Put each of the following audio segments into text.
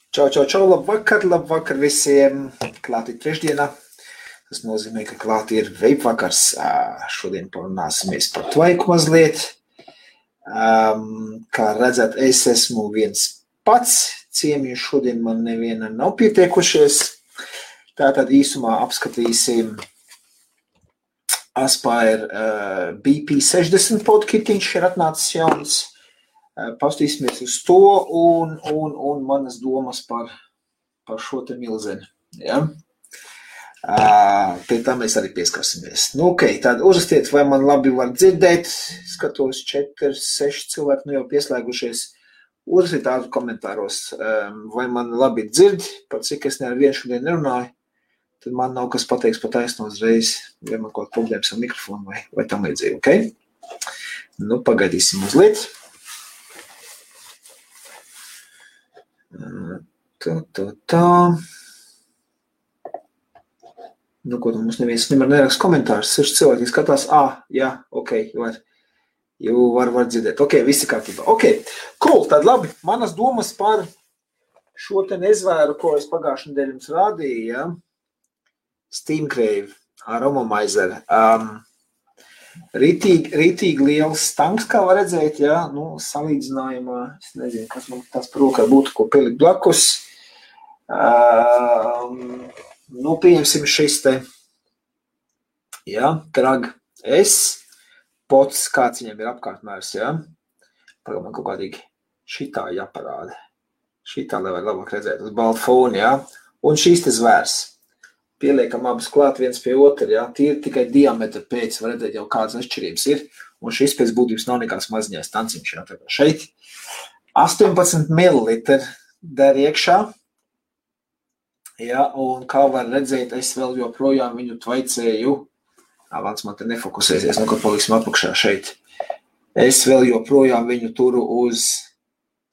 Čau, labvakar visiem. Klāt ir trešdienā. Tas nozīmē, ka klāt ir veipvakars. Šodien parunāsimies par tvaiku mazliet. Kā redzat, es esmu viens pats. Ciemiņu šodien man neviena nav pietiekušies. Tātad īsumā apskatīsim Aspire BP60 podkitiņš ir atnācis jauns. Pastīsimies uz to un manas domas par šo te milzeni. Ja? Pie tā mēs arī pieskarsimies. Tad uzrastiet, vai man labi var dzirdēt. Skatos 4-6 cilvēki jau pieslēgušies. Uzrastiet tādu komentāros, vai man labi dzird, par cik es nevienu šodien nerunāju. Tad man nav kas pateiks pa taisno uzreiz, vai man kaut problēmas ar mikrofonu vai tam līdzīgi, ok? Pagaidīsim mazliet. Tā. Ko tu mums neviens neraksta komentārus, 6 cilvēki skatās, jā, ok, var dzirdēt, ok, visi kārtībā, ok, cool, tad labi, manas domas par šo te nezvēru, ko es pagājušajā nedēļā jums rādīju, ja? Steamcrave, Aromomizer, Rītīgi liels tanks, kā var redzēt, ja, salīdzinājumā, es nezinu, kas man tas par rokā būtu, ko pielikt blakus. Pieņemsim šis te, ja, Krag S, pots, kāds viņam ir apkārtmērs, ja. Pagad man kaut kādīgi šitā jāparāda. Šitā, lai var labāk redzēt, uz balta fona, ja. Un šīs te zvērs. Pieliekam abas klāt viens pie otra, ja, tīri tikai diametra pēc, var redzēt jau kādas atšķirības ir, un šis pēc būtības nav nekāds maziņais tanciņš, ja, tā kā šeit 18 ml der iekšā, ja, un kā var redzēt, es vēl joprojām viņu tvaicēju, vans man te nefokusēsies, kad paliksim apakšā šeit, es vēl joprojām viņu turu uz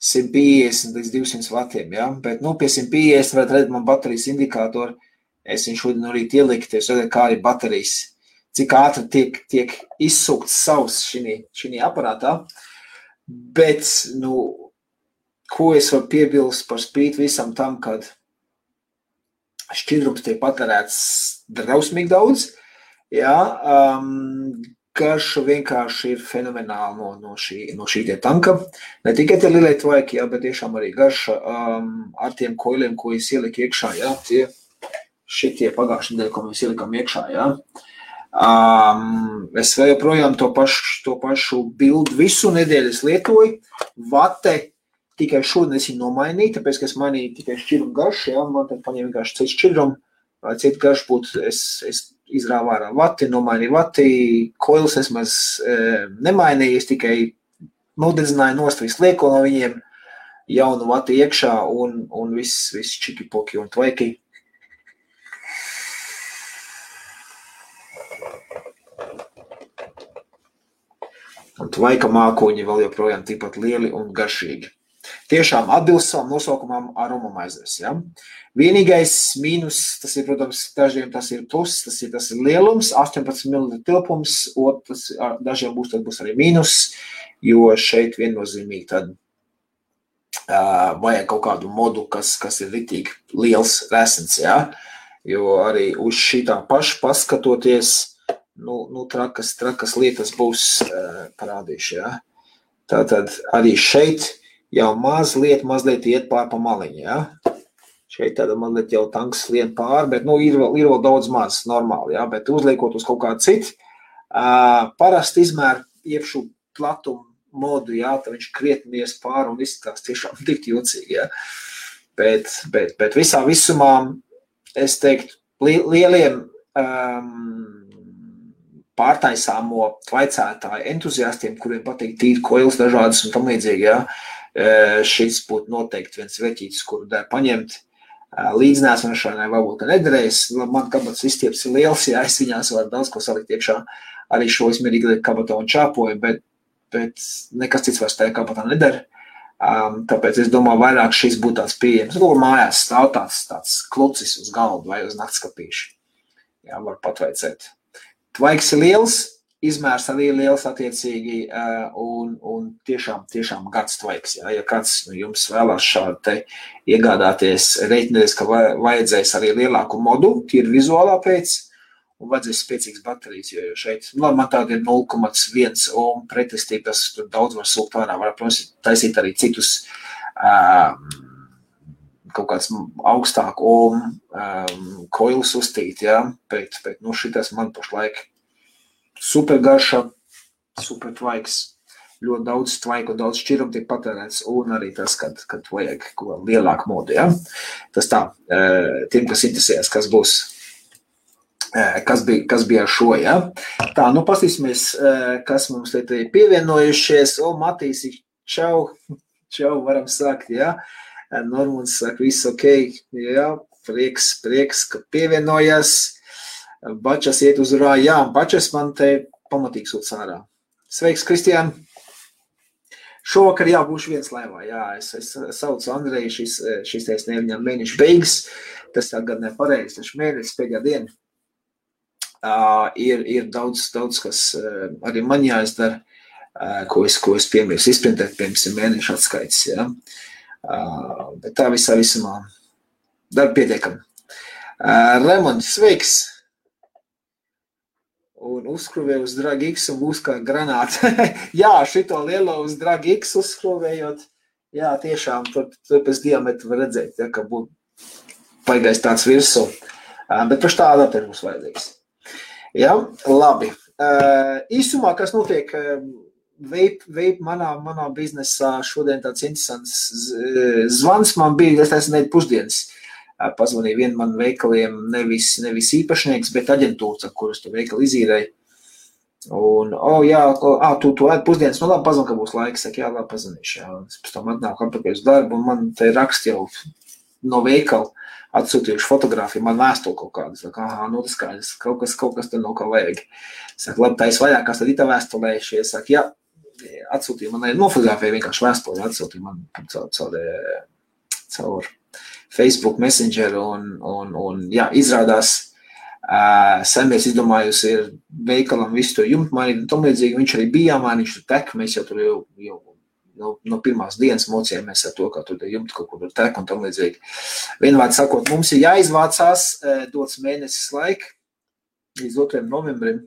150 līdz 200 vatiem, ja, bet, pie 150 varat redzēt man baterijas indikātoru. Es viņu šodien no rīta ielikt, es redzēju, kā arī baterijas, cik ātri tiek izsūkts savs šī aparātā. Bet, ko es varu piebilst par spīti visam tam, kad šķidrums tiek patērēts drausmīgi daudz, jā, garša vienkārši ir fenomenāla no šī tie tanka. Ne tikai tie lielie tvaiki, jā, bet tiešām arī garša ar tiem koiliem, ko es ieliku iekšā, jā, tie šitie pagājušajā nedēļā, ko mēs ielikām iekšā, ja. Es vēl joprojām to pašu bildu visu nedēļu es lietoju. Vate tikai šodien es viņu nomainīju, tāpēc, ka es mainīju tikai šķidrumu garšu, ja. Man tad paņēma vienkārši citu šķidrumu, vai citu garšu būtu, es izrāvu ārā vati, nomainīju vati, koilus es maz nemainīju, es tikai nodedzināju nost visu lieko no viņiem, jaunu vati iekšā un viss čiki-poki un tvaiki. Un tvaika mākoņi vēl joprojām tikpat lieli un garšīgi. Tiešām atbilst savam nosaukumam Aromomizers, ja? Vienīgais mīnus, tas ir, protams, dažiem tas ir plus, tas ir lielums, 18 ml tilpums, dažiem būs arī mīnus, jo šeit viennozīmīgi tad vajag kaut kādu modu, kas ir ritīgi liels resens, ja? Jo arī uz šitā paša paskatoties, trakas lietas būs parādījuši, ja. Tātad arī šeit jau mazliet iet pār pa maliņu, ja. Šeit tāda mazliet jau tanks lien pār, bet, ir vēl daudz maz normāli, ja, bet uzliekot uz kaut kādu citu, parasti izmēr iepšu platumu modu, ja, tad viņš krietni ies pār un izskatās tiešām tik jocīgi, ja. Bet visā visumā, es teiktu, lieliem pārtaisāmo tvaicētāju entuziastiem, kuriem patīk tīri koils dažādas un tam līdzīgi, ja, šis būtu noteikti viens veķītis, kuru der paņemt. Līdznēsmašanai varbūt nederēs, man kabatas izstieps ir liels, ja es viņās varu daudz ko salikt iekšā, arī šo es mierīgi kabatā un čāpoju, bet nekas cits vairs tajā kabatā neder. Tāpēc es domāju, vairāk šis būtu tāds pieejams. Mājās stāv tāds klucis uz galdu vai uz naktskapīšu. Jā, var patveicēt. Tvaiks ir liels, izmērs arī liels attiecīgi un tiešām gads tvaiks. Ja kāds jums vēlās šādu te iegādāties, reiķināties, ka vajadzēs arī lielāku modu, tīri vizuālā pēc, un vajadzēs spēcīgas baterijas, jo šeit, man tāda ir 0,1 ohm pretestība, tas tur daudz var sūkt ārā, var, protams, taisīt arī citus kaut kāds augstāku ohm koilus uztīt, ja, bet šitas man pašlaik super garša, super tvaiks, ļoti daudz tvaiku un daudz šķirumu tiek patērēts, un arī tas, kad vajag ko lielāku modu, ja. Tas tā, tiem, kas interesējas, kas būs, kas bija ar šo, ja. Tā, pastīsimies, kas mums te pievienojušies. Matīs, čau, varam sākt, ja. Normunds saka, viss ok, ja, prieks, ka pievienojas. Bačas iet uz urā, jā, Bačas man te pamatīgi sūc ārā. Sveiks, Kristiān! Šovakar būšu viens laivā, jā, es saucu Andreju, šis teiks neviņam mēnešu beigas, tas tagad nepareizi, taču mēnesis pēdējā diena. Ir daudz, kas arī man jāizdara, ko es piemērs izprintēt, piemēram, mēnešu atskaits, ja. Bet tā visumā darba pietiekam. Raimond, sveiks! Un uzskruvē uz Drag X un būs kā granāta. Jā, šito lielo uz Drag X uzskruvējot, jā, tiešām, tur pēc diametru var redzēt, ja, ka būtu paigais tāds virsū. Bet paši tā adapteri būs vajadzīgs. Jā, labi. Īsumā, kas notiek vape manā biznesā, šodien tāds interesants zvans man bija, es nedēļu pusdienas. Pazvanīja vienu man veikaliem, nevis īpašnieks, bet aģentūra, kuras tu veikali izīrēji. Un, tu ēd pusdienas, labi, pazvan, ka būs laiks, saka, jā, labi, pazvanīšu, jā. Es pēc tam atnāku atpakaļ uz darbu, un man te rakst jau no veikala atsūtījuši fotogrāfiju, man vēstuli kaut kādas, saka, tas skaidrs, kaut kas te nav kā vajag. Saka, labi, tā es vaļākās tad itā vēstulējuši, saka, jā, atsūtīja, man nofotogrāfija vienkārši vēstuli, atsūtīja man caur Facebook Messenger un jā, izrādās saimnieks izdomājusi ir veikalam visu to jumtu mainīt un tam līdzīgi, viņš arī bija jāmaina, viņš tur tek, mēs jau tur jau no pirmās dienas mocījāmies ar to, kā tur jumtu kaut kur tek un tam līdzīgi. Vienvārdi sakot, mums ir jāizvācās, dots mēnesis laika līdz 2. novembrim,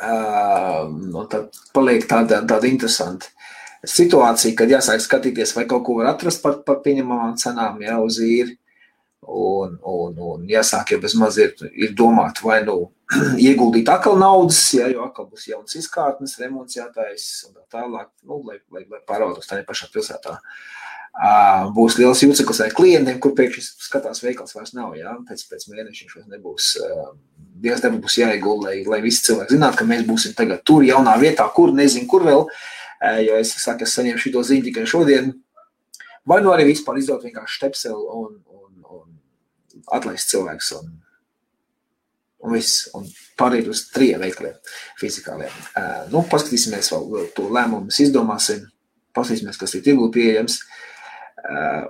un tad paliek tāda interesanta situācija, kad jāsāk skatīties, vai kaut ko var atrast par pieņemamām cenām, jā, uz īri, un jāsāk jau bez maz ir domāt, vai ieguldīt atkal naudas, jā, jo atkal būs jauns izkārtnes, remonts jātais, un tā tālāk, lai pārvaldos tā pašā pilsētā. Būs liels jūceklis ar klientiem, kur pēkšņi skatās veikals vairs nav, jā, pēc mēneša viņš vairs nebūs, Dievs nebūs jāiegulda, lai visi cilvēki zinātu, ka mēs būsim tagad tur jaunā vietā, kur, nezinu, kur vēl, jo es saku, es saņēmu šito ziņu tikai šodien, vai arī vispār izdot vienkārši štepseli un atlaist cilvēks un viss, un pārīt uz 3 veikaliem fizikāliem. Paskatīsimies vēl to lēmumu, mēs izdomāsim, paskatīsimies, kas ir tirgū pieejams,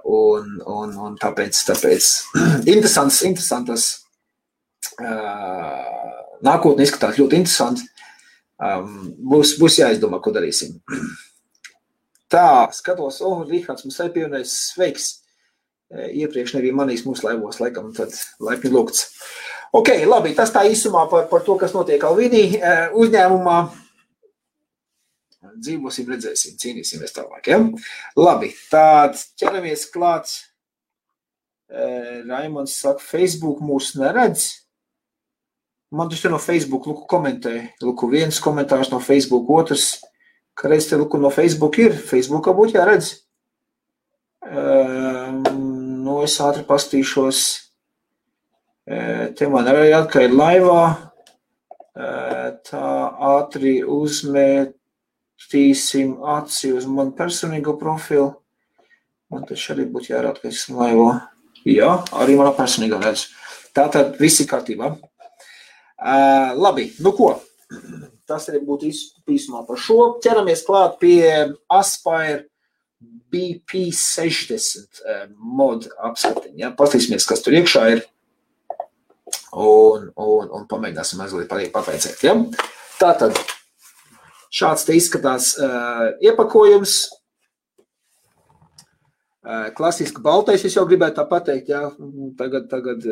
un tāpēc interesantas nākotne izskatās ļoti interesanti. Būs jāizdomā, ko darīsim. Tā, skatos, Rihards mums arī pievienojas, sveiks. Iepriekš nebija manīs mūsu laivos, laikam, tad laipni lūgts. Ok, labi, tas tā īsumā par to, kas notiek Alvinī uzņēmumā. Dzīvosim, redzēsim, cīnīsimies tālāk, ja? Labi, tād ķeramies klāt. Raimonds saka, Facebook mūs neredz. Man taču no Facebook, Luku komentēja. Luku viens komentārs no Facebook, otrs, ka reiz te Luku no Facebook ir. Facebookā būtu jāredz. Es ātri pastīšos. Te man arī ka ir laivā. Tā ātri uzmetīsim aci uz manu personīgo profilu. Man taču arī būtu jārāda, ka esmu laivā. Jā, arī manā personīgā redz. Tātad visi kārtībā. Labi, ko? Tas arī būtu īsumā par šo. Ķeramies klāt pie Aspire BP60 mod apskatiņa. Ja? Paskatīsimies, kas tur iekšā ir un pamēģināsim mazliet papēcēt. Ja? Tātad, šāds te izskatās iepakojums. Klasiski baltais, es jau gribētu tā pateikt, jā, tagad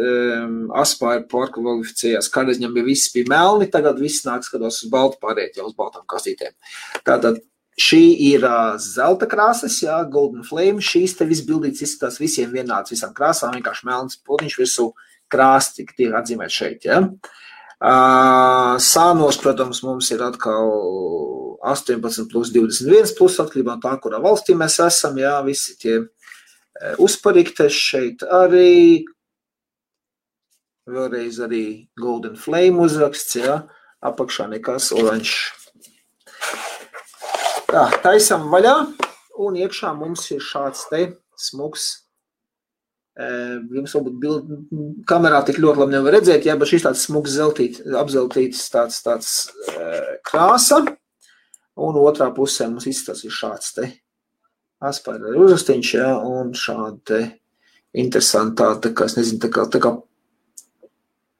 Aspire pārkvalificējās, kādreiz viņam viss bija melni, tagad viss nāk skatos uz baltu pāriet, jau uz baltām kastītēm. Tātad, šī ir zelta krāsas, jā, Golden Flame, šīs te viss bildīts izskatās visiem vienāds, visām krāsām, vienkārši melns potiņš virsū krāsti, tiek atzīmēt šeit, jā. Sānos, protams, mums ir atkal 18 plus 21 plus, atkarībā no tā, kurā valstī mēs esam, jā, visi tie uzpariktes šeit arī, vēlreiz arī Golden Flame uzraksts, jā, apakšā nekas oranžs. Tā, taisam vaļā, un iekšā mums ir šāds te smuks, jums varbūt kamerā tik ļoti labi nevar redzēt, jā, bet šis tāds smuks apzeltīts tāds krāsa, un otrā pusē mums izskatās ir šāds te Aspire uzrastiņš, jā, un šāda te interesantā, tā kā, es nezinu, tā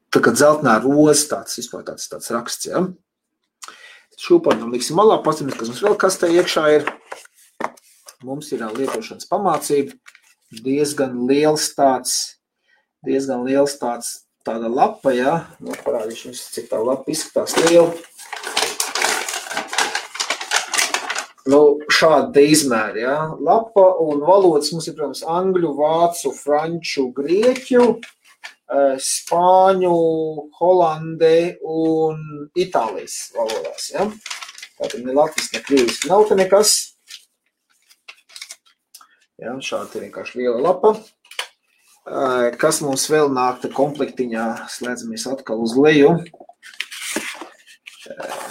kā dzeltenā roza, tāds raksts, jā. Šūpaņam liksim malā, pastamies, kas mums vēl kastē iekšā ir. Mums ir lietošanas pamācība, diezgan liels tāda lapa, jā. Nu, parādīšu jums, cik tā lapa izskatās liela. Nu, šāda te izmēra, jā. Lapa un valodas mums ir, protams, angļu, vācu, franču, grieķu, spāņu, holandē un itālijas valodās, jā. Tātad ne latviski, ne krieviski nav te nekas. Jā, šāda te vienkārši liela lapa. Kas mums vēl nāk te komplektiņā, slēdzamies atkal uz leju.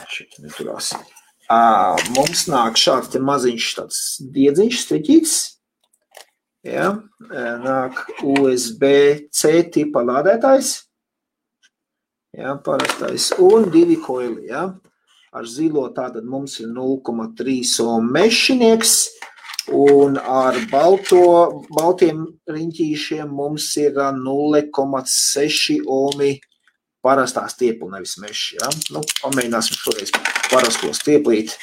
Šeit neturās. Mums nāk šāds te maziņš tāds diedziņš, striķīts. Ja, nāk USB-C tipa lādētājs. Ja, parastais. Un 2 koili. Ja. Ar zilo tātad mums ir 0,3 ohm mešinieks. Un ar baltiem riņķīšiem mums ir 0,6 ohmi parastā stiepla, nevis meši, ja? Nu, pamēģināsim šoreiz parasto stieplīt,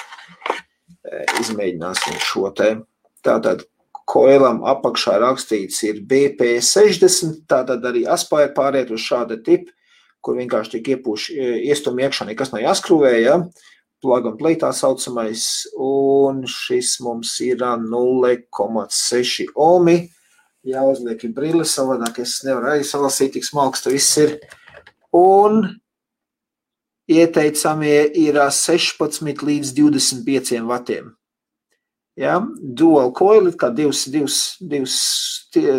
izmēģināsim šo te. Tātad koilam apakšā rakstīts ir BP60, tātad arī Aspire pāriet uz šāda tipa, kur vienkārši tiek iestum iekšā, nekas nav jāskrūvē, ja? Plug and play tā saucamais, un šis mums ir 0,6 ohmi. Jāuzliek ir brille, savādāk es nevaru arī salasīt, tik smalks tas viss ir. Un ieteicamie ir 16 līdz 25 vatiem. Ja? Dual coil, kā divas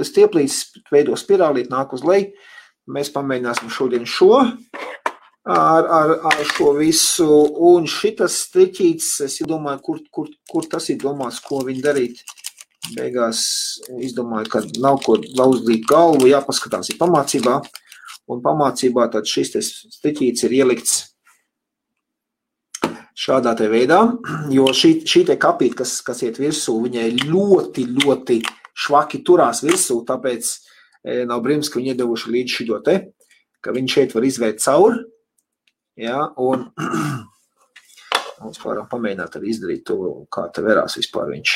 stieplītes veido spirālīt, nāk uz leju. Mēs pamēģināsim šodien šo ar šo visu. Un šitas striķīts, es domāju, kur tas ir domāts, ko viņi darīt. Beigās izdomāju, ka nav ko lauzdīt galvu, jāpaskatās ir pamācībā. Un pamācībā tad šis striķīts ir ielikts šādā te veidā, jo šī te kapīt, kas iet virsū, viņai ļoti, ļoti švaki turās virsū, tāpēc nav brīnums, ka viņi iedevuši līdz šito te, ka viņi šeit var izvērt cauri, ja, un mums varam pamēģināt arī izdarīt to, kā te verās vispār viņš.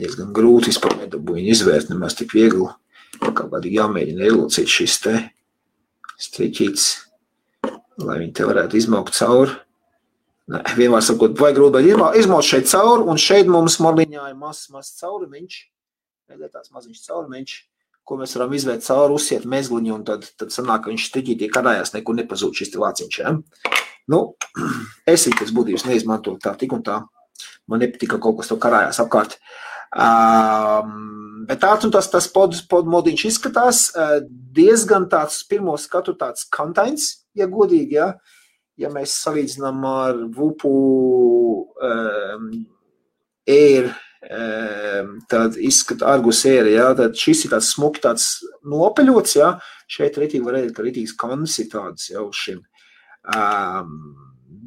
Diezgan grūti vispār nedabū viņu izvērt, nemaz tik viegli. Kaut kādīgi jāmēģina ielocīt šis te striķīts, lai viņi te varētu izmaukt cauri. Vienmēr sakot, vajag grūti izmaukt šeit cauri, un šeit mums marliņā ir mazs caurumiņš, tāds maziņš caurumiņš, ko mēs varam izvērt cauri, uzsiet mezgliņu, un tad sanāk, ka viņš striķītī karājās, nekur nepazūd šis te lāciņš. Ja? Nu, es pēc būtības neizmantoju tā tik un tā. Man nepatika kaut kas to karājās apkārt. Bet tāds un tas podmodiņš izskatās diezgan tāds pirmo skatu tāds kantains, ja godīgi, ja. Ja mēs salīdzinām ar Vupu Air, tad izskata Argus Air, ja, tad šis ir tāds smuki, tāds nopeļots, ja. Šeit ritīgi var redzēt, ka ritīgs kans ir tāds jau uz šim.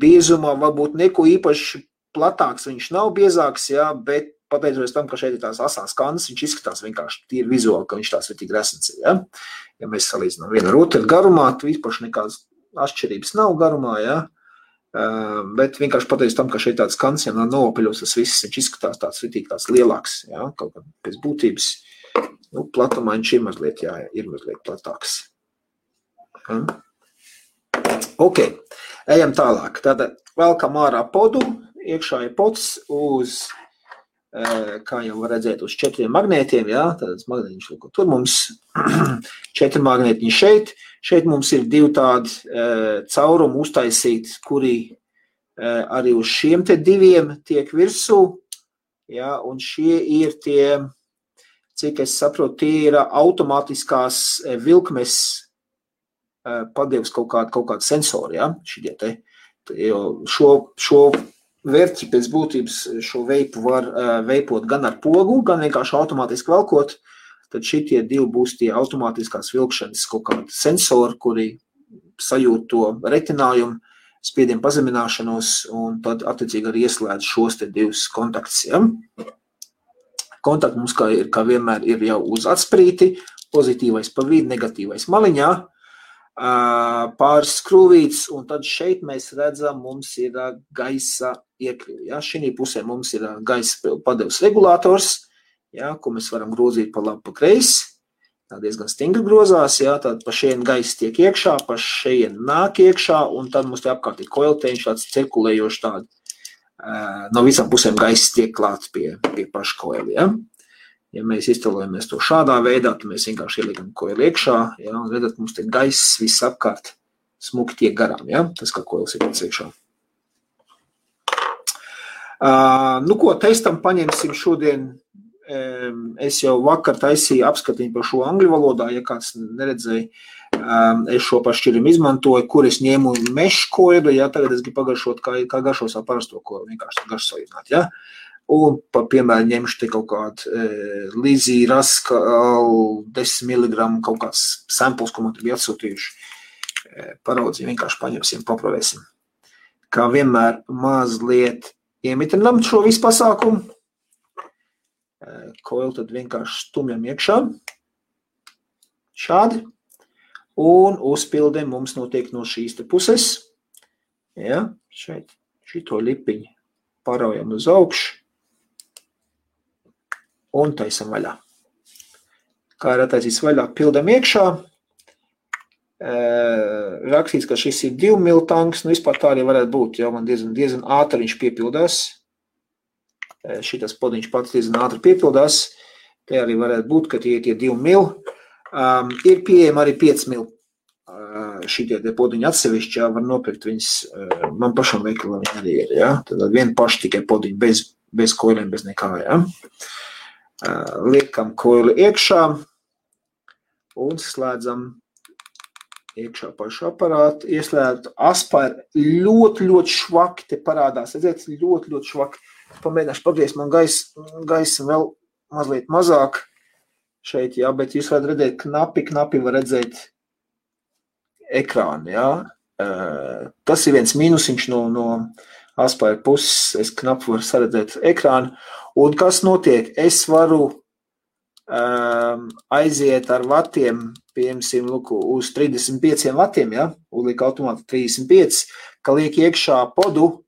Biezumā varbūt neko īpaši platāks viņš nav biezāks, ja, bet pateicoties tam, ka šeit ir tās asās kandas, viņš izskatās vienkārši tīri vizuāli, ka viņš tās ritīgi resns ir, ja. Ja mēs salīdzinām vienu ar otru garumā, tu īpaši nekādas atšķirības nav garumā, ja. Bet vienkārši pateicu tam, ka šeit tāds kants, ja nopaļos, tas viss, viņš izskatās tāds ritīgi tāds lielāks, jā, kaut kā pēc būtības, nu, platumā viņš ir mazliet platāks. Ja. Ok, ejam tālāk. Tātad velkam ārā podu, iekšā ir pods uz, kā jau var redzēt, uz 4 magnētiem, jā, tādas magnētiņš, tur mums 4 magnētiņi šeit mums ir 2 tādi caurumi uztaisīti, kuri arī uz šiem te 2 tiek virsū, jā, un šie ir tie, cik es saprotu, tie ir automātiskās vilkmes padevs kaut kādu sensoru, jā, šitie te, jo šo vērķi pēc būtības šo veipu var veipot gan ar pogu, gan vienkārši automātiski velkot, tad šitie 2 būs tie automātiskās vilkšanas kaut kādi sensori, kuri sajūt to retinājumu, spiedienu pazemināšanos, un tad attiecīgi arī ieslēdz šos te 2 kontaktus. Ja? Kontakti mums kā vienmēr ir jau uz atsprīti, pozitīvais pa vidu, negatīvais maliņā, pāris skrūvītes, un tad šeit mēs redzam, mums ir gaisa iekļuvi. Ja? Šī pusē mums ir gaisa padevs regulators, ja? Ko mēs varam grozīt pa labi, pa kreisi. Tā diezgan stingri grozās, ja? Tad pa šeit gaisa tiek iekšā, pa šeit nāk iekšā, un tad mums te apkārt ir koilteņš, tāds cirkulējošs tādi. No visām pusēm gaisa tiek klāts pie paša koili. Ja? Ja mēs iztēlojamies to šādā veidā, tad mēs vienkārši ieliekam koili iekšā, ja, un redzat, mums te gaiss viss apkārt smuki tiek garām, ja, tas, kā koils ir pēc iekšā. Nu ko, testam paņemsim šodien, es jau vakar taisīju apskatiņu par šo angļu valodā, ja kāds neredzēja, es šo pašķirumu izmantoju, kur es ņēmu mešu koili, ja, tagad es gribu pagaršot, kā garšo savu parasto koili, vienkārši garšsojināt, ja. Un, piemēram, ņemšu te kaut kādu Lizī Raskal 10 mg kaut kāds samples, ko man te bija atsūtījuši. Paraudzīju, vienkārši paņemsim, paprovēsim. Kā vienmēr mazliet iemitrinam šo visu pasākumu. Koili tad vienkārši stumjam iekšā. Šādi. Un uzpildēm mums notiek no šīs te puses. Ja, šeit šito lipiņu paraujam uz augšu. Un taisam vaļā. Kā ir attaisīts vaļā, pildam iekšā. Rakstīts, ka šis ir 2 mil tanks, nu vispār tā arī varētu būt, jau man diezgan ātri viņš piepildās. Šitas podiņš pats diezgan ātri piepildās. Te arī varētu būt, ka tie 2 mil. Ir pieejama arī 5 mil. Šitie podiņi atsevišķi, jā, var nopirkt viņas, man pašam veikalā viņi arī ir, jā. Tad vien paši tikai podiņi bez koiliem, bez nekā, jā. Liekam koili iekšā un slēdzam iekšā pašu aparātu. Ieslēdzu aspāri ļoti švaki te parādās. Redziet, ļoti švaki. Pamēģināšu pagriezt man gaisa vēl mazliet mazāk šeit, jā, bet jūs varat redzēt, knapi var redzēt ekrānu, jā. Tas ir viens mīnusiņš no aspāri puses. Es knapi varu saredzēt ekrānu. Un kas notiek? Es varu aiziet ar vatiem, piemēram, uz 35 vatiem, ja? Uzliek automāti 35, ka liek iekšā podu,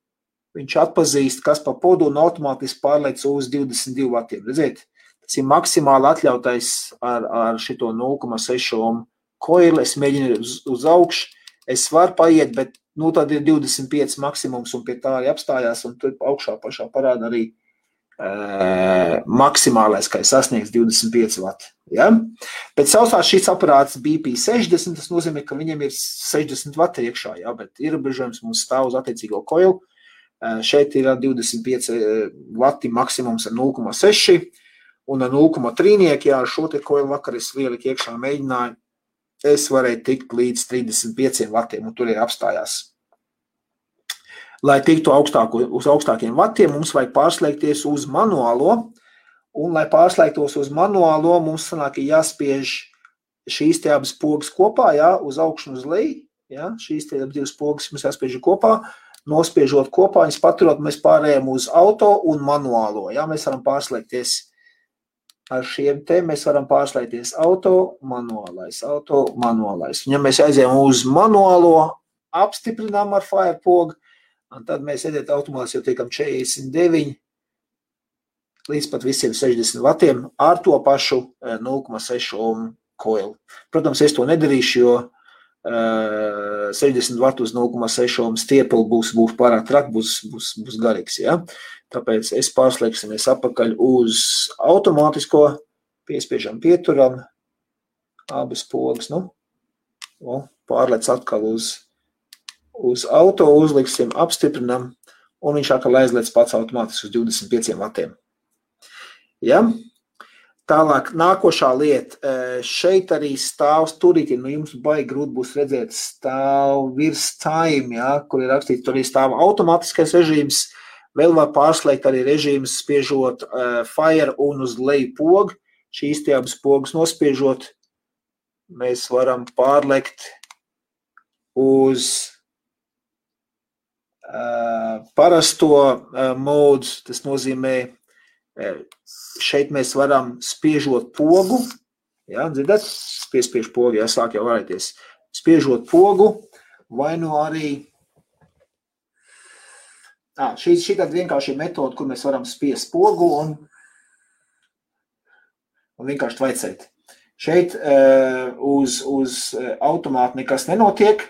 viņš atpazīst, kas pa podu un automātiski pārlec uz 22 vatiem. Redziet, tas ir maksimāli atļautais ar šito 0,6 ohm koili. Es mēģinu uz augšu, es varu paiet, bet tad ir 25 maksimums un pie tā arī apstājās, un tur augšā pašā parāda arī maksimālais, kā ir sasniegs 25 vati. Ja? Pēc sausās šis aparāts BP60, tas nozīmē, ka viņam ir 60 vati iekšā, ja? Bet ierobežojums mums stāv uz attiecīgo koilu. Šeit ir 25 vati maksimums ar 0,6 un ar 0,3, ja ar šo te koilu vakar es lieliku iekšā mēģināju, es varēju tikt līdz 35 vatiem, un tur ir apstājās. Lai tiktu uz augstākiem vatiem, mums vajag pārslēgties uz manuālo, un lai pārslēgtos uz manuālo, mums sanāk, jāspiež šīs te abas pogas kopā, jā, uz augšu un uz leju, jā, šīs te divas pogas mums jāspiež kopā, nospiežot kopā, viņas paturot, mēs pārējām uz auto un manuālo, jā, mēs varam pārslēgties ar šiem te, mēs varam pārslēgties auto, manuālais. Ja mēs aizējām uz manuālo, apstiprinām ar Firepogu, Un tad mēs edēt automāts jau tiekam 49 līdz pat visiem 60 vatiem ar to pašu 0,6 ohmu koilu. Protams, es to nedarīšu, jo 60 vatu uz 0,6 ohmu stiepli būs pārāk traki, būs garīgs. Ja? Tāpēc es pārslēgsimies apakaļ uz automātisko, piespiežam pieturam, abas pogas, pārlec atkal uz auto, uzliksim, apstiprinam, un viņš atkal aizliec pats automātiski uz 25 vatiem. Ja? Tālāk, nākošā lieta, šeit arī stāv turīti, jums baigi grūti būs redzēt, stāv virs time, ja, kur ir rakstīts, tur arī stāv automātiskais režīms, vēl var pārslēgt arī režīmus, spiežot fire un uz leju pogu, šīs tie abas pogas nospiežot, mēs varam pārlekt uz parasto modu, tas nozīmē, šeit mēs varam spiežot pogu, ja, dzirdat? Piespiež pogu, ja, sāk jau varēties. Spiežot pogu, vai nu arī, šī tāda vienkārši metoda, kur mēs varam spiest pogu un vienkārši tvaicēt. Šeit uz automātu nekas nenotiek.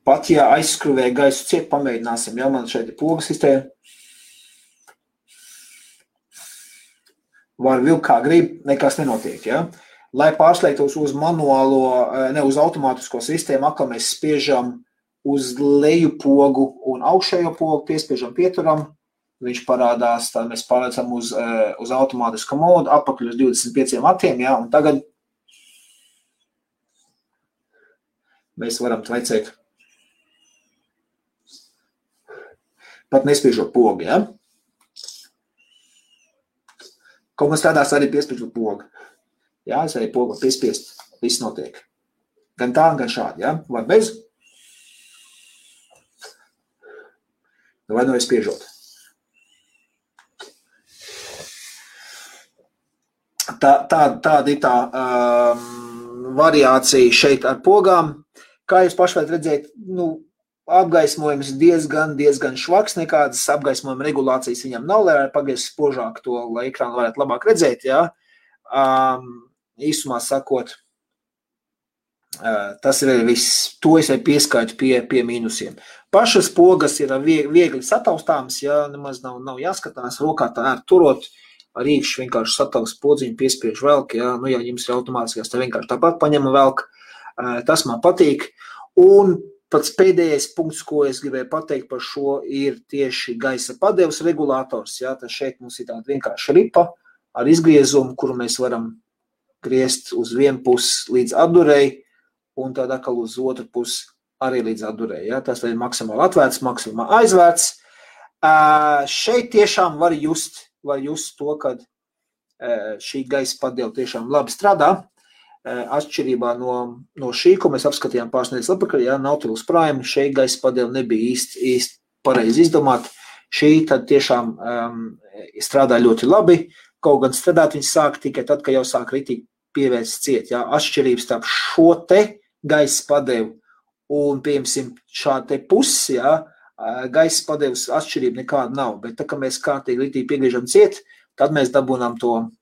Pat, ja aizskruvē gaisu ciet, pamēģināsim, ja man šeit ir pogas sistēma. Var vilkt kā grib, nekas nenotiek, ja. Lai pārslēgtos uz manuālo, ne uz automātisko sistēmu, atkal mēs spiežam uz leju pogu un augšējo pogu, piespiežam pieturam, viņš parādās, tad mēs pārliecam uz automātisko modu, apakaļ uz 25 vatiem, ja, un tagad mēs varam tvaicēt. Pat nespiežot pogu, ja? Kaut man strādās arī piespiežot pogu. Jā, es arī pogu piespiest, viss notiek. Gan tā, gan šādi, ja? Vai bez? Vai nu es spiežot. Tāda ir tā variācija šeit ar pogām. Kā jūs paši varat redzēt, apgaismojums diezgan švaks, nekādas apgaismojuma regulācijas viņam nav, lai pagaies spožāk to, lai ekrānu varētu labāk redzēt, jā. Īsumā sakot, tas ir viss, to es pieskaitu pie mīnusiem. Pašas pogas ir viegli sataustāmas, jā, nemaz nav jāskatās, rokā tā turot, ar īkšķi vienkārši sataust podziņu, piespiež velk, jā, ja jums ir automātiskās, tā vienkārši tāpat paņem velk, tas man patīk, un pats pēdējais punkts, ko es gribēju pateikt par šo, ir tieši gaisa padevs regulators. Jā, tad šeit mums ir tāda vienkārša ripa ar izgriezumu, kuru mēs varam griezt uz vienu pusi līdz atdurēji, un tad atkal uz otru pusi arī līdz atdurēji. Jā, tas ir maksimāli atvērts, maksimāli aizvērts. Šeit tiešām var just to, kad šī gaisa padeva tiešām labi strādā. Atšķirībā no šī, ko mēs apskatījām pāris nedēļas atpakaļ, ja, Nautilus Prime, šeit gaisa padeva nebija īsti pareizi izdomāta. Šī tad tiešām strādā ļoti labi, kaut gan strādāt viņi sāk tikai tad, kad jau sāk ritīgi pievērst ciet. Ja. Atšķirības starp šo te gaisa padevu un, piemēram, šādu te pusi, ja, gaisa padevas atšķirība nekāda nav, bet tā, ka mēs kārtīgi ritīgi piegriežam ciet, tad mēs dabūnām to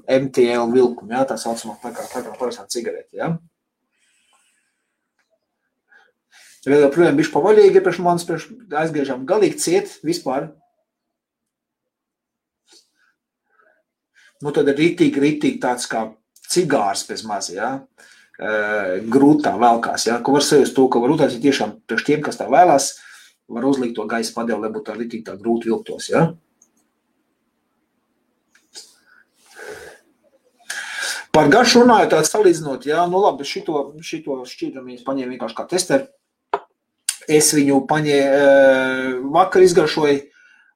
MTL vilkumu, ja, tā saucamā tā kā parastā cigarete, ja. Vēl joprojām bišķi pavaļīgi, priekš manis aizgriežam galīgi ciet vispār. Tad ir ritīgi tāds kā cigārs bez maz, ja, grūtā velkās, ja, ko var sajust to, ka var uztaisīt tiešām priekš tiem, kas tā vēlās, var uzlikt to gaisa padevu, lai būtu tā ritīgi tā grūti vilktos, ja. Par garšu runāju tādu salīdzinot, jā, labi, šito šķīdumu es paņēmu vienkārši kā testeri. Es viņu vakar izgaršoju,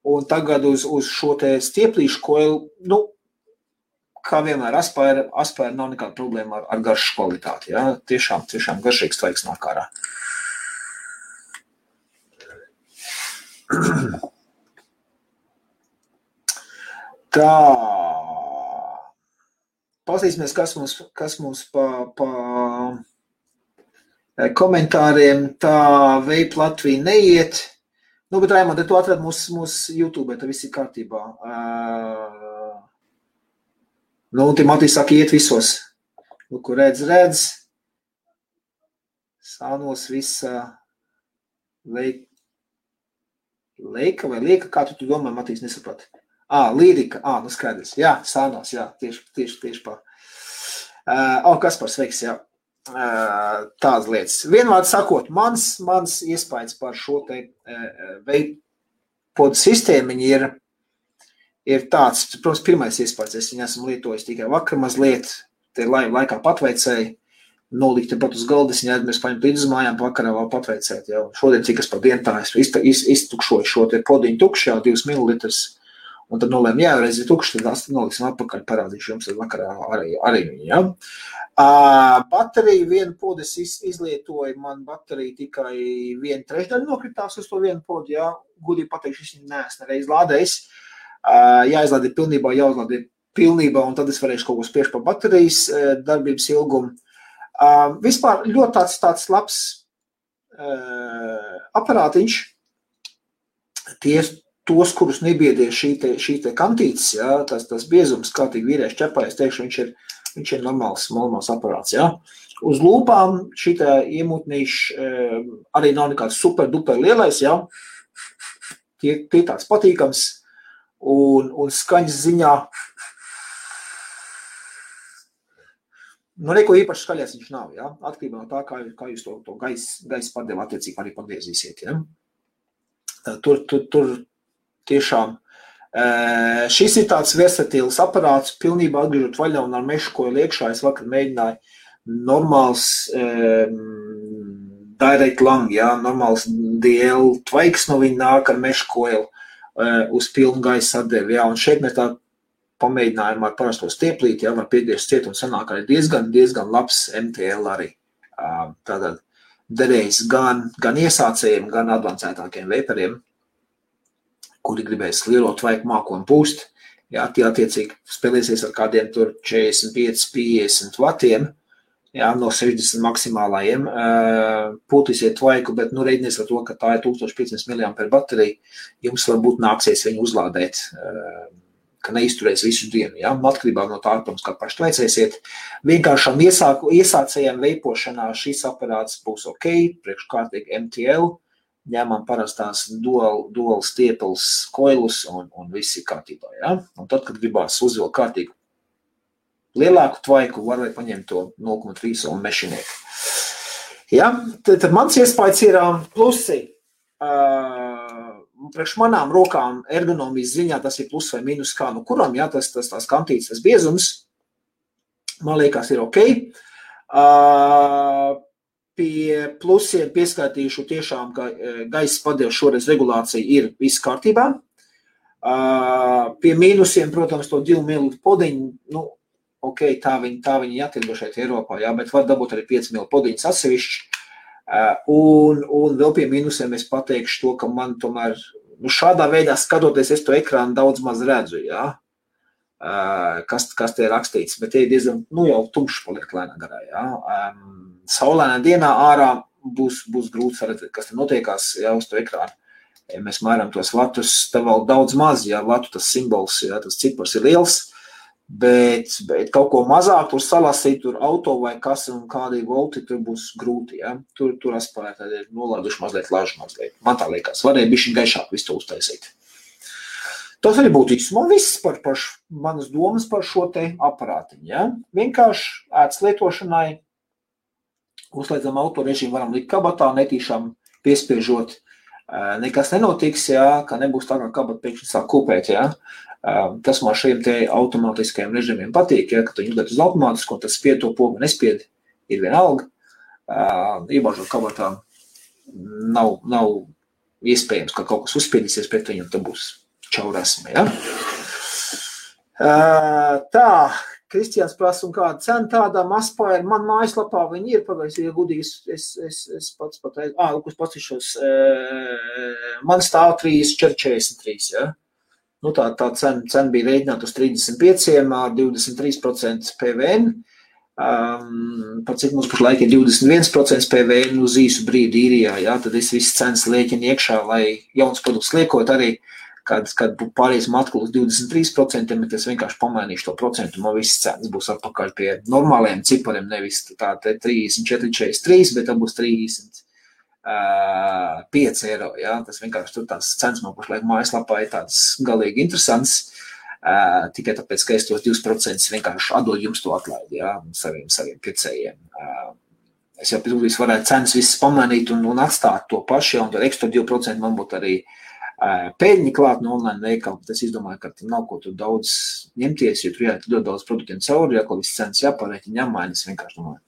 un tagad uz šo te stieplīšu koilu, kā vienmēr Aspire nav nekāda problēma ar garšas kvalitāti, jā. Tiešām garšīgs tvaiks nāk ārā. Tā. Paskatīsimies, kas mums komentāriem, tā Vape Latvija neiet. Nu, bet Raimond, tu atrad mūsu YouTube, tā viss ir kārtībā. Nu, Timotīs saka, iet visos. Nu, kur redz. Sānos visa Leika vai Lieka, kā tu domā, Matīs, nesaprati? Lirika, nu skaidrs. Jā, Sānos, jā, tieši pā. Kaspars, sveiks, jā. Tādas lietas. Vienvārds sakot, mans iespējas par šo te Vape sistēmiņu ir tāds, protams, pirmais iespējas, es viņu esmu lietojis tikai vakar mazliet, te laikā patveicēju, nolikt pat uz galda, es viņu aizmirsu paņemt līdz uz mājām, vakarā vēl patveicēt, jau. Šodien cik es par dienu tā iztukšoju šo te podiņu tukšu, jau 2 mililitrus, un tad nolēmu, jā, reiz ir tukši, tad noliksim atpakaļ, parādīšu jums tad vakarā arī viņu, jā. Bateriju vienu podu es izlietoju, man baterija tikai 1/3 nokritās uz to vienu podu, jā, gudīgi pateikšu, es viņu neesmu reiz lādējis, jāizlādē pilnībā, jāuzlādē pilnībā, un tad es varēšu kaut ko spiešu par baterijas darbības ilgumu. Vispār ļoti tāds labs aparātiņš, tos, kurus nebiedē šī te kantītes, jā, tas biezums, kārtīgi vīrieši ķepā, es teikšu, viņš ir normāls aparāts, jā. Uz lūpām šitā iemūtnīši arī nav nekāds super duper lielais, jā. Tie tāds patīkams un skaņas ziņā. Nu, neko īpaši skaļās viņš nav, jā. Atkarībā no tā, kā jūs to gaisa padevu attiecīgi arī pagriezīsiet, jā. Tur tiešām. Šis ir tāds versatīls aparāts, pilnībā atgriežot vaļā un ar mešu koilu iekšā. Es vakar mēģināju normāls direct lang, jā, normāls DL tvaiks no viņa nāk ar mešu koilu uz pilnu gaisa atdevi, jā. Un šeit mēs tā pamēģinājām ar parasto stieplīti, jā, var piegriezt ciet un sanāk arī diezgan labs MTL arī. Tātad derējis gan iesācējiem, gan advancētākiem vaperiem, kuri gribēs lielo tvaiku māku un pūst. Jā, tie attiecīgi spēlēsies ar kādiem tur 45-50 vatiem, jā, no 60 maksimālajiem. Pūtīsiet tvaiku, bet nu reidinies ar to, ka tā ir 1500 mAh baterija. Jums varbūt nāksies viņu uzlādēt, ka neizturēs visu dienu, jā. Atkarībā no tā, protams, kā paši veicēsiet. Vienkāršām iesācējiem veipošanā šis aparāts būs ok, priekškārtīgi MTL. Ņemam parastās dual stieples koilus un viss ir kārtībā, jā. Un tad, kad gribās uzvilkt kārtīgu lielāku tvaiku, var vai paņemt to 0,3 un mešiniet. Jā, tad mans iespējas ir plusi. Priekš manām rokām ergonomijas ziņā tas ir plus vai minus kā no kuram, jā, tās kantītes, tas biezums, man liekas, ir ok. Pie plusiem pieskaitīšu tiešām, ka gaisa padevu šoreiz regulācija ir viss kārtībā. Pie mīnusiem, protams, to 2 ml podiņu, nu, ok, tā viņi jātirgo šeit Eiropā, jā, bet var dabūt arī 5 ml podiņas atsevišķi. Un vēl pie mīnusiem es pateikšu to, ka man tomēr, nu, šādā veidā skatoties, es to ekrānu daudz maz redzu, jā, kas te ir rakstīts, bet tie ir diezgan, nu, jau tumšs paliek lēnā garā, jā. Saulēnā dienā ārā būs grūti redzēt, kas te notiekās, jā, uz to ekrānu. Ja mēs mēram tos vatus, tā vēl daudz maz, jā, vatu tas simbols, jā, tas cipars ir liels, bet kaut ko mazāk tur salasīt, tur auto vai kas un kādi volti, tur būs grūti, jā. Tur aspārēt, tad ir nolaiduši mazliet lažu mazliet. Man tā liekas, varēja bišķiņ gaišāk visu to uztaisīt. Tas arī būtu īsumā viss par manas domas par šo te aparātiņu, jā. Vienkārši ētas lietošanai, uzslēdzam auto režīmu, varam likt kabatā, netīšām piespiežot, nekas nenotiks, jā, ka nebūs tā, kā kabata pēkšņi sāk kūpēt, jā. Tas man šiem te automātiskajiem režīmiem patīk, ja, ka tu ņemot uz automātisku, un tas spied to pogu nespied, ir vienalga. Iebāžot kabatā nav iespējams, ka kaut kas uzspiedīsies pret viņu, un tad būs čaurasme, ja. Tā, Kristiāns prasa, un kāda cena tādām Aspire, man mājaslapā viņi ir, pagājis, ja gudīgi, es pats pateicu, kas pacišos, man stāv 3,43, ja. Nu, tā cena bija rēķināta uz 35 ar 23% PVN. par cik mums pašlaik ir 21% PVN uz īsu brīdi īrijā, jā, tad es visu cenas lēķinu iekšā, lai jauns produkts liekot arī, kad pāriesim atkal uz 23%, bet es vienkārši pamainīšu to procentu, man viss cenas būs atpakaļ pie normāliem cipariem, nevis tā 34,43, bet tā būs 35 eiro, jā, tas vienkārši tur tās cenas man pašlaik mājaslapā ir tāds galīgi interesants, tikai tāpēc, ka es tos 2% vienkārši atdod jums to atlaidi, jā, saviem pircējiem. Es jau pēc varētu cenas visas pamainīt un atstāt to pašu, un tad ekstra 2% man būtu arī pēļņi klāt no online veikala, bet es izdomāju, ka nav ko tur daudz ņemties, jo tur ļoti daudz produktiem cauri, ja viss cenas jāpārēķina, jāmainas, vienkārši domāju.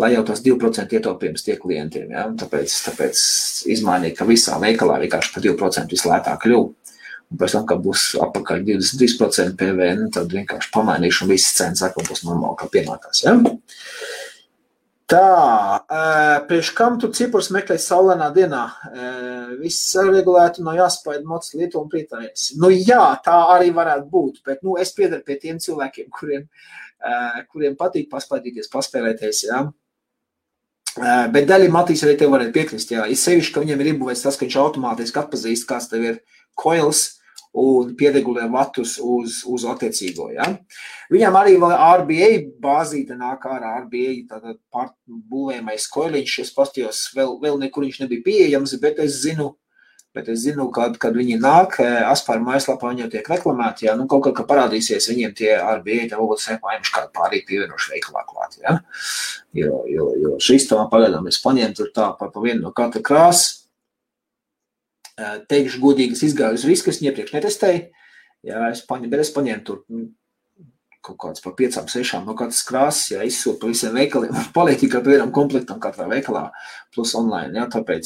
Lai jau tas 2% ietaupījums tie klientiem, ja? Tāpēc izmainīt, ka visā veikalā vienkārši par 2% vislētāk kļuv. Un pēc tam, kad būs apakaļ 23% PVN, tad vienkārši pamainīšu un visas cenas atkal būs normāli, kā pienākās. Ja? Tā, priekš kam tu cipurs meklēt saulainā dienā? Viss saregulētu, nav jāspaida mocis Lietuva un prietājais. Nu jā, tā arī varētu būt, bet es piedaru pie tiem cilvēkiem, kuriem patīk paspaidīties, paspēlēties, jā. Bet daļai Matīs arī tev varētu piekrist, jā. Ir sevišķi, ka viņiem ir iebūvēts tas, ka viņš automātiski atpazīst, kāds tev ir coils un pieregulē vatus uz attiecīgo, ja. Viņam arī vēl RBA bāzīte nāk ārā, RBA tātad būvējamais koiliņš, es pastījos, vēl nekur viņš nebija pieejams, bet es zinu, kad viņi nāk, Aspāra mājaslapā viņi jau tiek reklamēti, ja, kaut kā parādīsies viņiem tie RBA, tā varbūt sēpājums kādu pārīgi pievienošu veikalā klāt, ja. Jo šis tā pagaidām es paņēmu tur tā pa vienu no katra krāsa. Teikšu godīgi, es izgāju uz risku, es iepriekš netestēju, jā, es paņēmu tur kaut kāds pa 5-6 no katras krāsas, jā, izsūtu pa visiem veikaliem, paliek tikai pa vienam komplektam katrā veikalā, plus online, jā, tāpēc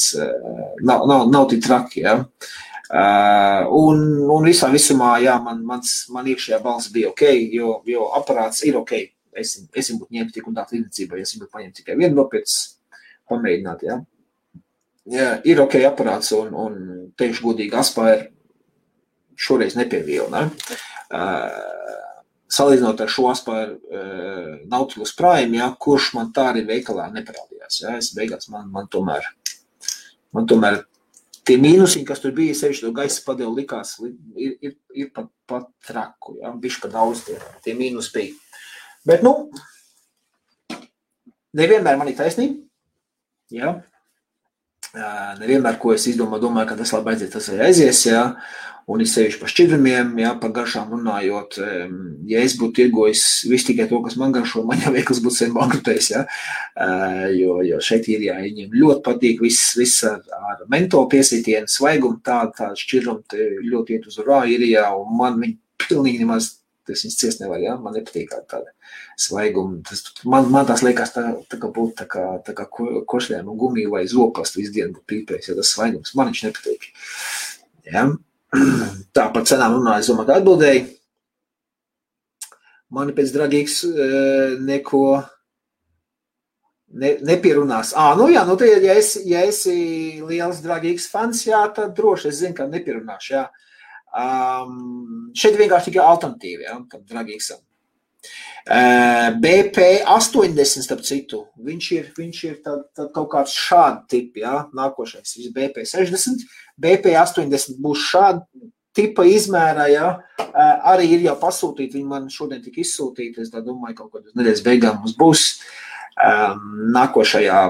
nav tik traki, jā. Un visā visumā, jā, man iekšējā balss bija ok, jo aparāts ir ok, es būtu ņemt tik un tā tirdzniecībā, ja es būtu paņemt tikai vienu nopietnes pamēģināt, jā. Jā, ir ok aparāts un teikšu godīgi Aspāra šoreiz nepievīla, ne? Salīdzinot ar šo Aspāra Nautilus Prime, jā, kurš man tā arī veikalā neparādījās, jā, es beigās man tomēr tie mīnusiņi, kas tur bija, sevišķi to gaisa padevu likās, ir pat traku, jā, bišķi pa daudz tie mīnus bija. Bet, nevienmēr man ir taisnība, jā. Nevienmēr, ko es domāju, ka tas labi aizies, tas arī aizies, jā, un es sevišķi par šķidrumiem, jā, par garšām runājot, ja es būtu tirgojis visu tikai to, kas man garšo, man jau veikals būtu sen bankrutējis, jā, jo šeit ir, jā, viņiem ļoti patīk viss ar mentolu piesītienu, svaigumu, tāda šķidrumi ļoti iet uz urā ir, jā, un man viņi pilnīgi nemaz, tas viņas ciest nevar, jā, man nepatīk tāda svaiguma, man tās liekas tā kā būtu tā kā košļēm un gumiju vai zopastu visu dienu būtu pīpējis, ja tas svaigums, man viņš nepatīk, jā. Tā par cenām runāju, es domāju, ka atbildēju. Mani pēc dragīgs neko nepierunās. Jā, ja esi liels dragīgs fans, jā, tad droši es zinu, ka nepierunāšu, jā. Šeit vienkārši tikai alternatīvi, jā, tam dragīgsam. BP80, starp citu, viņš ir tad kaut kāds šādi tipi, jā, nākošais, BP60, BP80 būs šādi tipa izmērā, jā, arī ir jau pasūtīti, viņi man šodien tika izsūtīti, es tā domāju, kaut kādā nedēļas beigām mums būs, nākošajā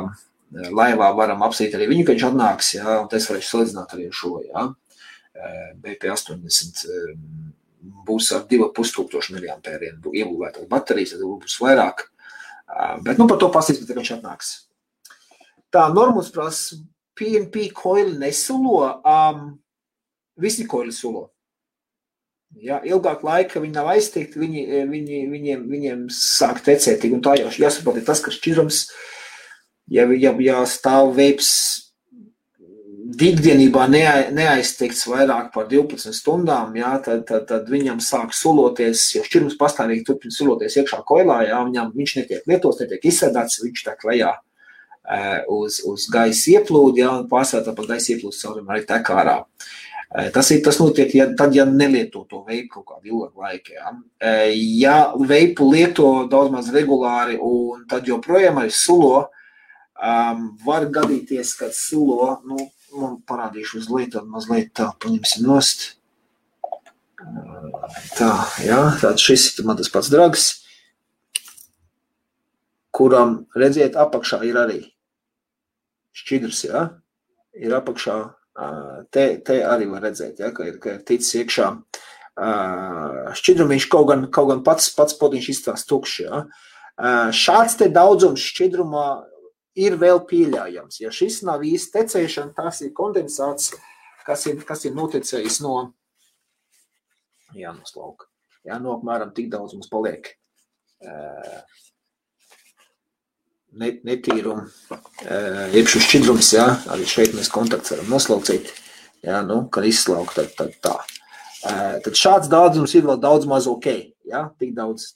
laivā varam apsīt arī viņu, ka viņš atnāks, jā, un es varēšu salīdzināt arī šo, jā, BP80 būs ar 2,5 miliampēriem iebūvētās baterijas, tad būs vairāk. Bet par to pasīsim, kad viņš atnāks. Tā, Normus prasa, PNP koili nesulo, visi koili sulo. Ja, ilgāk laika viņi nav aiztiekti, viņiem sāk tecēt, un tā jau jāsaprot ir tas, ka šķidrums, ja stāv veips ikdienībā neaizteikts vairāk par 12 stundām, jā, tad viņam sāk suloties, jo šķirums pastāvīgi turpina suloties iekšā koilā, jā, viņš netiek lietots, netiek izsēdāts, viņš tek lejā uz gaisa ieplūdi, jā, un pārsvarā par gaisa ieplūdes caurumu arī tek ārā. Tas notiek, ja nelieto to veipu kaut kādu ilgu laiku. Ja, ja veipu lieto daudz maz regulāri un tad joprojām arī sulo, var gadīties, kad sulo, man parādīšu uz lietu, mazliet tā, paņemsim nost. Tā, jā, tātad šis ir man tas pats drags, kuram, redziet, apakšā ir arī šķidrs, jā, ir apakšā, te arī var redzēt, jā, ka ir ticis iekšā šķidrumiņš, kaut gan pats potiņš izstās tukšs, jā. Šāds te daudzums šķidrumā ir vēl pieļaujams. Ja šis nav īsti tecēšana, tas ir kondensāts, kas ir notecējis no slauka. Jā, apmēram tik daudz mums paliek netīrumu, iekšu šķidrums, jā, arī šeit mēs kontakts varam noslaucīt, jā, kad izslaukt, tad tā. Tad šāds daudzums ir vēl daudz maz ok, jā, tik daudz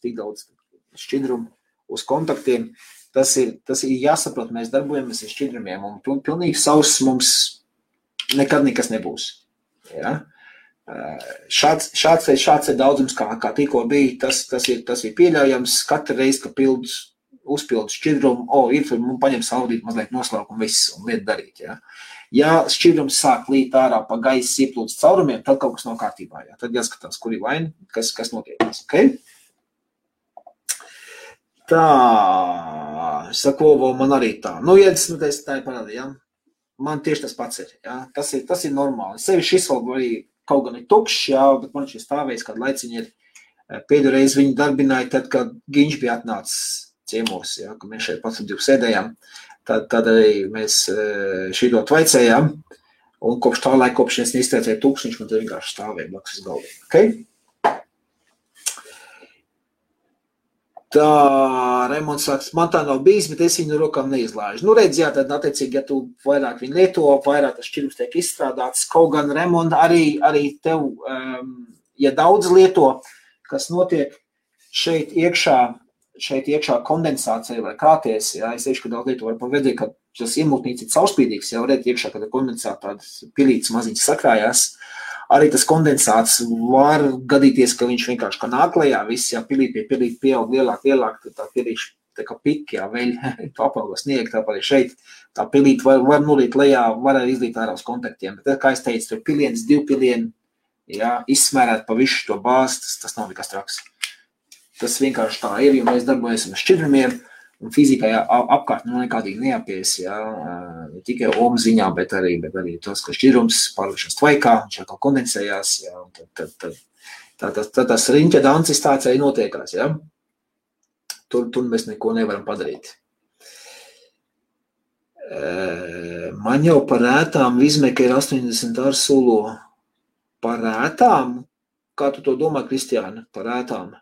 šķidrumu uz kontaktiem. Tas ir jāsaprot, mēs darbojamies ar šķidrumiem, un pilnīgi sauss mums nekad nekas nebūs, jā. Šāds daudzums, kā tikko bija, tas ir pieļaujams. Katru reizi, ka uzpildu šķidrumu, man paņem saudīt mazliet noslauku un viss, un lietu darīt. Ja, ja šķidrums sāk līt ārā pa gaisa ieplūdes caurumiem, tad kaut kas nav kārtībā. Ja. Tad jāskatās, kur ir vaina, kas notiekās. Okay? Tā, sakovo man arī tā. Tā ir parādi, ja. Man tieši tas pats ir. Ja. Tas ir normāli. Sevi šis vēl arī kaut gan ir tukšs, jā, bet man šis stāvējis, kad laiciņi ir pēdējo reizi viņu darbināja, tad, kad Giņš bija atnācis ciemos, jā, kad mēs šeit pats divu sēdējām, tad arī mēs šito tvaicējām, un kopš tā laika, kopš es neizteicēju tukšs, man tad vienkārši stāvēja blakus uz galdiem. Okay? Tā, Raimonds saka, man tā nav bijis, bet es viņu rokām neizlāžu. Redz, jā, tad attiecīgi, ja tu vairāk viņu lieto, vairāk tas šķidrums tiek izstrādāts, kaut gan, Raimond, arī tev, ja daudz lieto, kas notiek šeit iekšā kondensācija vai krāties, jā, es teikšu, ka daudz lieto var pavedzēt, ka tas iemultnīts ir caurspīdīgs, jā, varētu iekšā, kad kondensāta tādas pilītes maziņas sakrājās. Arī tas kondensāts var gadīties, ka viņš vienkārši kā nāk lejā, viss, jā, pilīt pieaug lielāk, tad tā pilīši tā kā piki, jā, veļ, tu apauga snieg, tāpat arī šeit, tā pilīt var nulīt lejā, var arī izlīt ārā uz kontaktiem, bet, kā es teicu, tur piliens, 2 pilieni, jā, izsmērēt pa visu to bāzi, tas nav nekas traks. Tas vienkārši tā ir, jo mēs darbojamies ar šķidrumiem, un fizikā apkārt nekādīgi neapies, jā, ne tikai ohmu ziņā, bet arī tas, ka šķidrums pārliekšanas tvaikā, viņš atkal kondensējās, jā, un tad tas riņķa dancis tāds arī notiekās, jā. Tur mēs neko nevaram padarīt. Man jau par ētām Vizmeka ir 80 ar sulo. Par ētām? Kā tu to domā, Kristiāna, par ētām?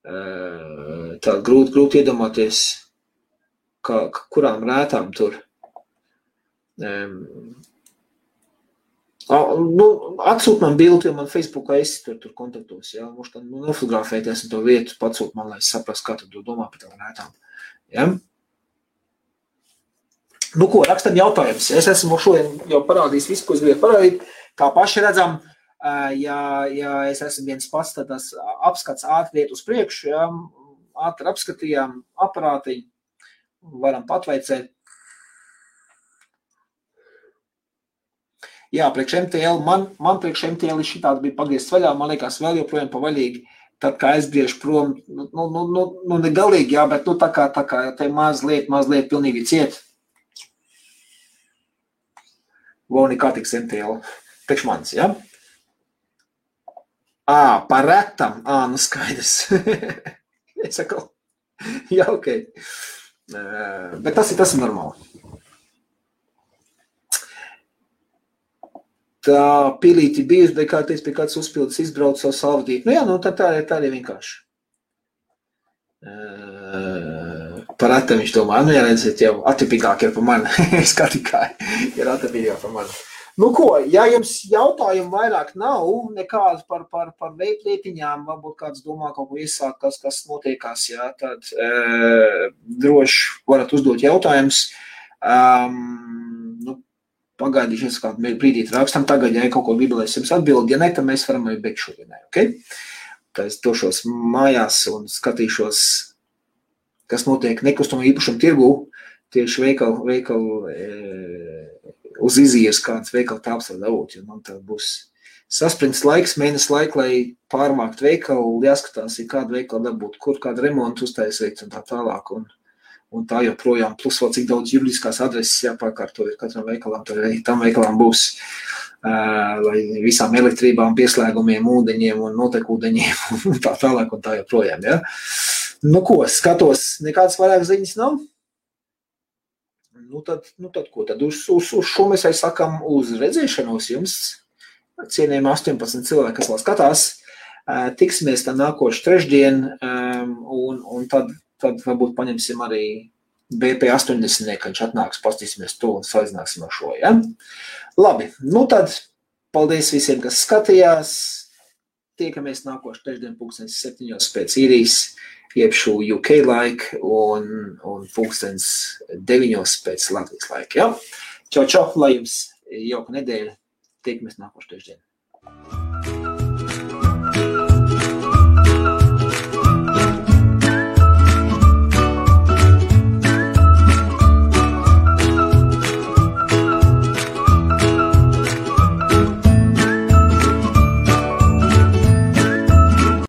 Tā grūti iedomāties, kurām rētām tur. Atsūt man bildi, jo man Facebookā esi tur kontaktos, jā, mums tā nofotografēties un to vietu patsūt man, lai es saprast, kā tu domā par tām rētām. Ja? Ko, rakstam jautājums. Es esmu šodien jau parādījis visu, ko es gribēju parādīt. Kā paši redzam, ja es esmu viens pats, tad tas apskats ātri iet uz priekšu, ja, ātri apskatījām aparātiņu, varam patveicēt. Jā, priekš MTL, man priekš MTL šitāds bija pagriezts vaļā, man liekas vēl joprojām pavaļīgi, tad kā es briežu prom, ne galīgi, jā, bet tā kā te mazliet pilnīgi ciet. Voni kā tiks MTL, priekš manis, jā? Par retam, skaidrs. Es saku, jā, ok. Bet tas ir normāli. Tā pilīti bijusi, bet kā teiks, pie kāds uzpildes izbrauc savu salvadību. Jā, tad tā ir vienkārši. Par retam viņš domā, jā, redziet, jau atipīgāk ir par mani. Es kā tikai ir atipīgāk par mani. Ko, ja jums jautājumu vairāk nav, nekāds par veiplietiņām, varbūt kāds domā kaut ko iesākt, kas notiekās, jā, tad droši varat uzdot jautājumus. pagaidīšies kādu brīdīt rakstam, tagad, ja kaut ko bībelēs jums atbild, ja ne, tad mēs varam arī beigt šodienai, ok? Tā es došos mājās un skatīšos, kas notiek nekustamo īpašumu tirgū, tieši veikalu uz iziejas kāds veikala tāps var dabūt, jo man tā būs sasprints laiks, mēnesis laika, lai pārmākt veikalu, jāskatās, ja kādu veikalu dabūt, kur kādu remontu uztaisīt un tā tālāk, un tā joprojām, plus vēl cik daudz juridiskās adreses jāpārkārto ir katram veikalam, tam veikalam būs, lai visām elektrībām, pieslēgumiem, ūdeņiem un notekūdeņiem un tā tālāk un tā joprojām, ja? Nu ko, skatos, nekādas vairāk ziņas nav? Nu tad ko, tad uz šo mēs arī sakam uz redzēšanos jums, cienījami 18 cilvēki, kas vēl skatās, tiksimies tā nākošu trešdien, un tad varbūt paņemsim arī BP 80, kad viņš atnāks, pastīsimies to un salīdzināsim ar šo, ja? Labi, nu tad paldies visiem, kas skatījās, tiekamies nākošu trešdien 7:00 pēc īrijas, jeb šo UK laika un 9:00 pēc Latvijas laika, ja? Čau, lai jums jauka nedēļa, tiekamies nākošu trešdien.